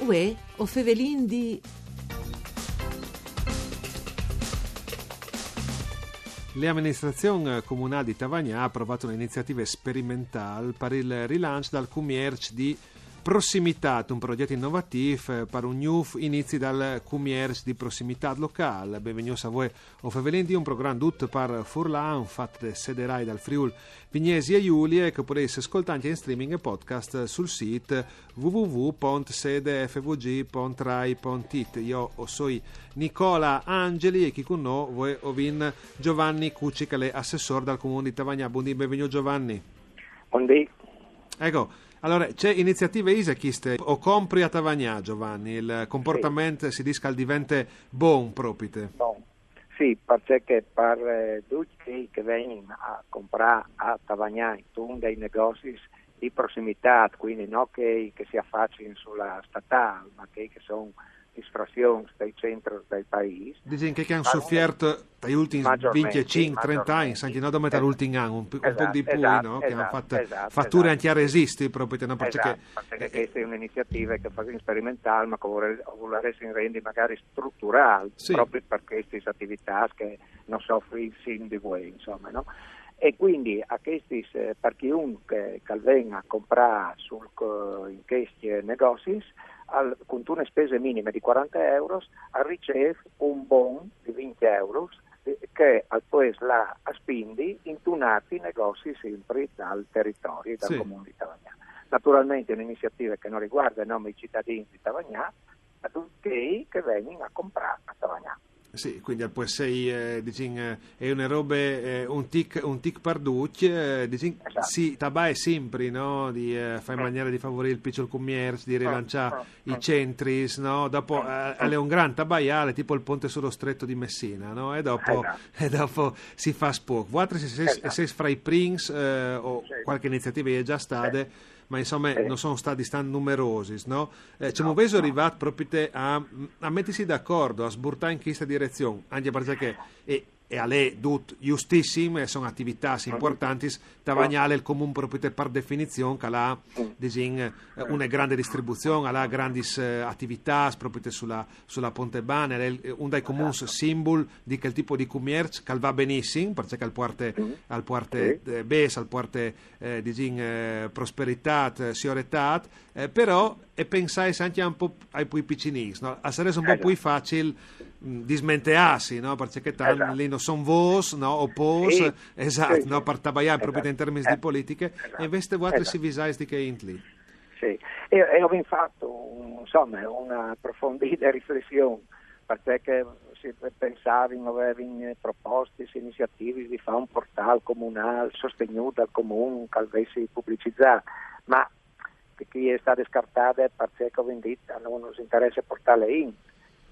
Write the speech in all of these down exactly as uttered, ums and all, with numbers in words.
Uè, o fevelin di... La amministrazion comunâl di Tavagnà à aprovât une iniziative sperimentâl par il rilanç dal cumierç di prossimitât, un progjet inovatîf, eh, par un gnûf inizi dal cumierç di prossimitât locâl. Benvignûts a vuê o fevelin di, un program dut par furlan, fat de sederâi dal Friûl Vignesie Julie, che o podês scoltâ ancje in streaming e podcast sul sît w w w pont sede f v g pont rai pont i t. Jo o soi Nicola Angeli e chi cun nô vuê o vin Giovanni Cucci, che al è assessôr dal Comun di Tavagnà. Bundì, benvignût Giovanni. Bundì. Eco, alore, ce iniziative ise cheste? O compri a Tavagnà, Giovanni, il comportament si dîs che al devente bon propite. Bon. Sì, parcè che par, eh, ducj chei che a vegnin a comprâ a Tavagnà intun dai negozis di prossimitât, cuindi no chei che si afacin su la statâl, ma chei che a son lis frazions dai centris dal paîs. Disìn che, che a àn sufiert tai ultins vincjecinc, trente agns, ancje no dome tal ultin an, un, un pôc di plui, no? Che a àn fat fature ancje a resisti, propit, no? Parcè che, parcè che cheste e je une iniziative che o fasìn sperimentâl, ma che o volarès-, o volarès rendi magari struturâl, propit par chestis ativitâts che no sofrin sin di vuê, insome, no? E cuindi a chestis, eh, par chiunche che al ven a comprâ sul co-, in chescj negozis, al, cuntune spese minime di cuarante euros, al ricêf un bon di vincj euros, eh, che al pues lâ a spindi intun altri negozi simpri dal teritori, dal Comun di Tavagnà. Naturalmentri e je une iniziative che no riguarde nome i citadins di Tavagnà, ma ducj chei che a vegnin a comprâ a Tavagnà. Sì, cuindi al pues sei, eh, disìn, eh, e je une robe, eh, un tic, un tic par ducj, eh, disìn, sì, tabae simpri, no? Di, eh, fâ in maniere di favorî il piçul cumierç, di rilançâ i centris, no? Dopo, eh, al è un grant tabaiâ, al è tipo il ponte sul Stret di Messina, no? E dopo, e dopo si fâs pôc. Vualtris o sês, o sês fra i prins, eh, o cualchi iniziative e je za stade, ma insome no son stadis tant numerosis, no? Eh, cemût vêso rivât propit a, a metisi d'acuardi, a sburtâ in cheste direzion, ancje parcè che e, e al è dut justissim, e a son ativitâts impuartantis, Tavagnà al è il comun propit par definizion che al à, disìn, eh, une grande distribuzion, al à grandis, eh, ativitâts propit su la, su la Pontebane, al è il, un dai comuns simbul di chel tipo di cumierç che al va benissim, parcè che al puarte, al puarte, eh, bêçs, al puarte, eh, disìn, eh, prosperitât, eh, siuretât, eh, però e pensais ancje un pôc ai plui piçinins, no? Al sarès un pôc plui facil, mm, dismenteâsi, no? Parcè che tant li no son vôts, no? O pôcs, esat, no? Par tabaiâ propit in termins di politiche, e invezit vualtris si visais di chê int li. Sì, e, e o vin fat un, insome, une aprofondide riflession, parcè che si pensavin, o vevin propostis, iniziativis di fâ un portâl comunâl sostignût dal comun che al ves publicizât, ma che e je stade scartade parcè che o vin dit, a nô nus interesse portâle in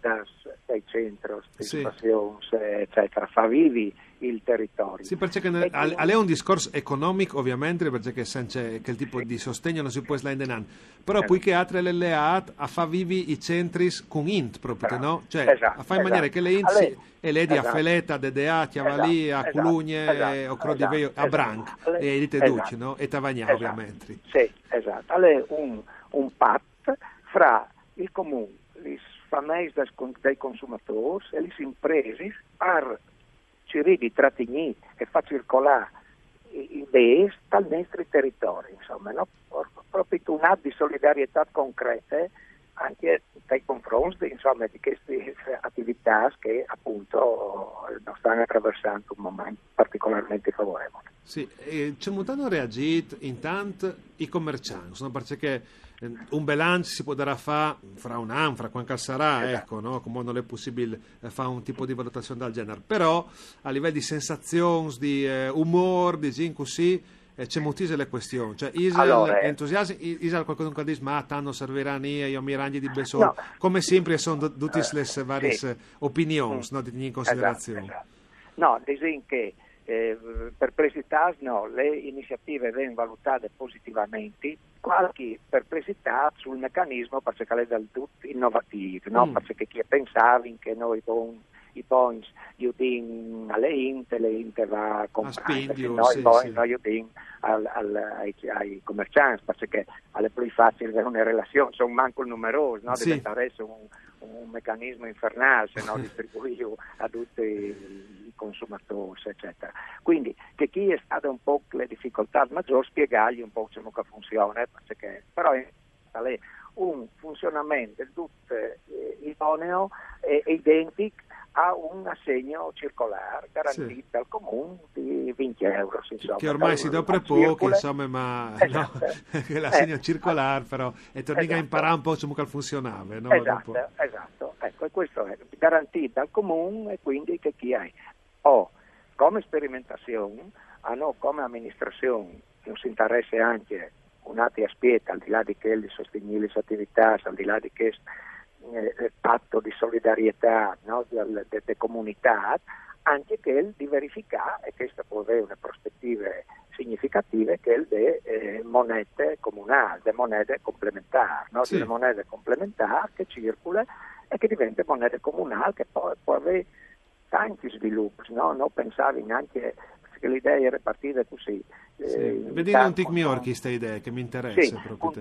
dai, dai centris, dai stazions, eccetera, fâ vivi il teritori. Sì, parcè che al, al è un discors economic, ovviamente, parcè che cence chel tipo di sostegn no si pues lâ indenant. Però plui che altri al è leât a fâ vivi i centris cun int propit, no? Cioè, a fâ in maniere che la int si, e ledi a Feleta, a Dedea, a Cjavalì, a Culugne, o Crodivei, a Branc, e a Dite Ducj, no? E Tavagnà, ovviamente. Sì, esat. Al è un, un pat fra il comun, lis fameis dai con-, dai consumadôrs e lis impresis par cirî di tratignî e fâ circolâ i, i bêçs tal nestri teritori, insome, no? Pro-, propit un at di solidarietât concrete ancje tai confronts di, insome, di chestis ativitâts che apont no stan atraversant un moment particolarmentri favorevul. Sì, e cemût àn reagjît intant i comerçants, no? Parcè che, eh, un bilanç si podarà fâ fra un an, fra cuant che al sarà, eco, no? Cumò nol è pussibil, eh, fâ un tipo di valutazion dal gjenar. Però a livel di sensazions, di, eh, umôr, disìn cussì, eh, cemût ise la cuestion? Cioè, isal entusiassim, i-, isal cualchidun che al dîs, ma tant nol servirà a nie, jo mi rangji di bessôl. No. Come simpri a son du-, dutis lis variis, eh, opinions, no, di tignî in considerazion. Esat, esat. No, disìn che, eh, perplessitâts no, la iniziative e ven valutade positivamentri, cualchi perplessitât sul mecanismo, parcè che al è dal dut inovatîf, no? Parcè che chei a pensavin che nô, bon, i bogns i dìn a le int, le int va a comprâ, Spindi, no, sì, i bogns sì. No, i dìn al, al, ai, ai comerciants, parcè che al è plui facil vê une relazion, son mancul numerôs, no? Sì. Al diventarès un, un mecanism infernâl se no distribuîju a ducj i consumadôrs, eccetera. Quindi, chê chi e je stade un pôc le dificoltât magjôr spiegâi un pôc cemût che al funzione, parcè che, però al è un funzionament dut, eh, idoneo e identic a un assegno circolâr garantît dal comun di vincj euros, insome. Che ormai si dopre pôc, insome, ma no, che l'assegno circolâr, però, e tornìn a imparâ un pôc cemût che al funzionave, no? Esat, esat. Eco, e chest al è garantît dal comun e quindi chê chi e je. O, come sperimentazion, a nô come aministrazion nus interesse ancje un altri aspiet, al di là di chel di sostignî lis ativitâts, al di là di chest, eh, pato di solidarietât, no? De, de, de comunitât, ancje chel di verificâ, e chest al pues vê une prospetive significative, chel de, eh, monede comunâl, de monede complementâr, no? Di une monede complementâr che e circule e che e divente monede comunâl, che po, po vê tancj svilups, no? No pensavin ancje che la idee e jere partide cussì. Sì. Vedìn un tic miôr cheste idee, che mi interesse. Sì, propit.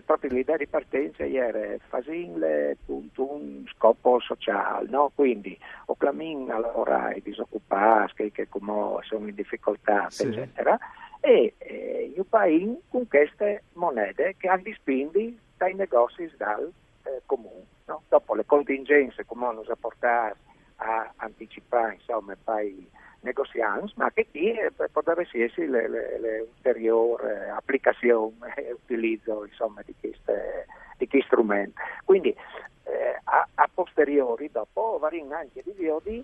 Propit la idee di partence e jere fasìnle cuntun scop sociâl, no? Quindi o clamìn a lavorâ i disocupâts, chei che cumò a son in dificoltât, sì, eccetera, e, eh, ju paìn cun cheste monede che a àn di spindi tai negocis dal, eh, comun, no? Dopo le contingence cumò nus à puartâts a anticipâ, insome, pai negoziants, ma chê chi, eh, podarès jessi le, le, le ulteriôr, eh, aplicazion e utilizo, insome, di chest, di chest strument. Quindi, eh, a, a posteriori, dopo, o varìn ancje di viodi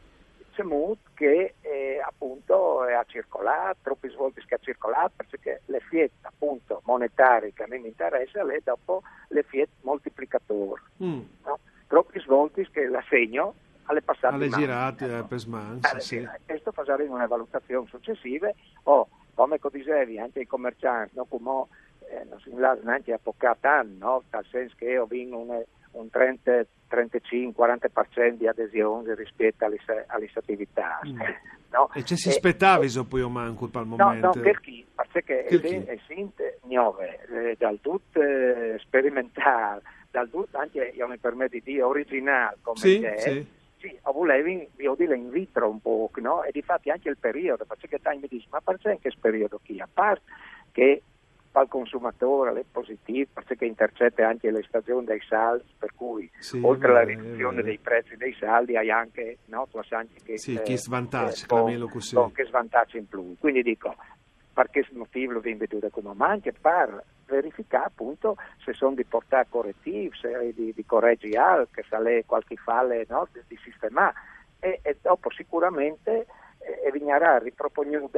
cemût che, eh, apont, eh, al à circolât, tropis voltis che al à circolât, parcè che l'efiet, apont, monetari che a mi mi interesse al è dopo l'efiet moltiplicadôr, no? Tropis voltis che l'assegno al è passât di mans. Al è girât, eh, pes mans, sì. Chest o fasarìn une valutazion sucessive, o, come che o disevi, ancje i comerciants, no? Cumò, eh, no si lassa nancje tocâ tant, no? Tal sens che o vin une, un trente, trentacinc, cuarante par cent di adesions rispiet a lis, a lis ativitâts, no? E ce si spetaviso plui o mancul pal moment? No, no, chel chi, parcè che e sint gnove, eh, dal dut, eh, sperimentâl, dal dut ancje, jo mi permet di dî, origjinâl, come che e je, sì, o volevin viodile in vitro un pôc, no? E difat ancje il periodo, parcè che tancj mi dîs, ma parcè in chest periodo chi? A part che pal consumadôr al è positîf, parcè che e intercete ancje le stazion dai salds, par cui, oltri a la riduzion dai prezis dai salds, e je ancje, no, tu âs ancje chest, sì, chest vantaç, eh, clamìnlu cussì, chest vantaç in plui. Quindi dico, par chest motîf lu vin viodût cumò, ma ancje par verificâ, apont, se a son di puartâ coretîfs, se di, di coregi alc, se al è cualchi fale, no, di, di sistemâ. E, e dopo sigurementri, eh, e vignarà ripropognût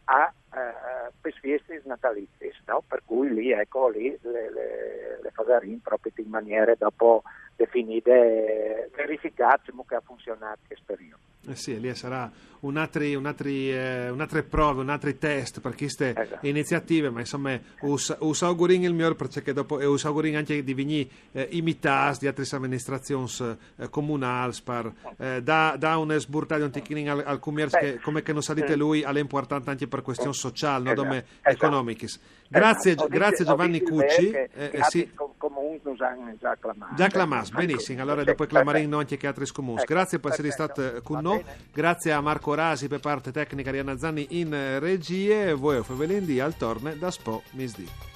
a, eh, pes fiestis nataliziis, no? Par cui li, eco, li le, le, le fasarìn propit in maniere dopo definide, verificât cemût che al à funzionât chest periodi. Eh sì, e li al sarà un altri, un altri, eh, une altre prove, un altri test par cheste iniziative, ma insome us, us augurìn il miôr, parcè che dopo, e us augurìn ancje di vignî, eh, imitâts di altris aministrazions, eh, comunâls, par, eh, dâ, dâ une sburtade un tichinin al, al cumierç, che, come che nus à dit lui, al è impuartant ancje par cuestions sociâls, no dome economichis. Grazie, grazie Giovanni Cucci. Che, eh, sì, comuns nus àn za clamâts. Za clamâts, benissim. Alore dopo o clamarìn ancje chei altris comuns. Grazie par jessi stât, eh, cun nô. Grazie a Marco Rasi par parte tecniche, Arianna Zanni in, eh, regie. Vuê o fevelìn di al torne daspò misdì.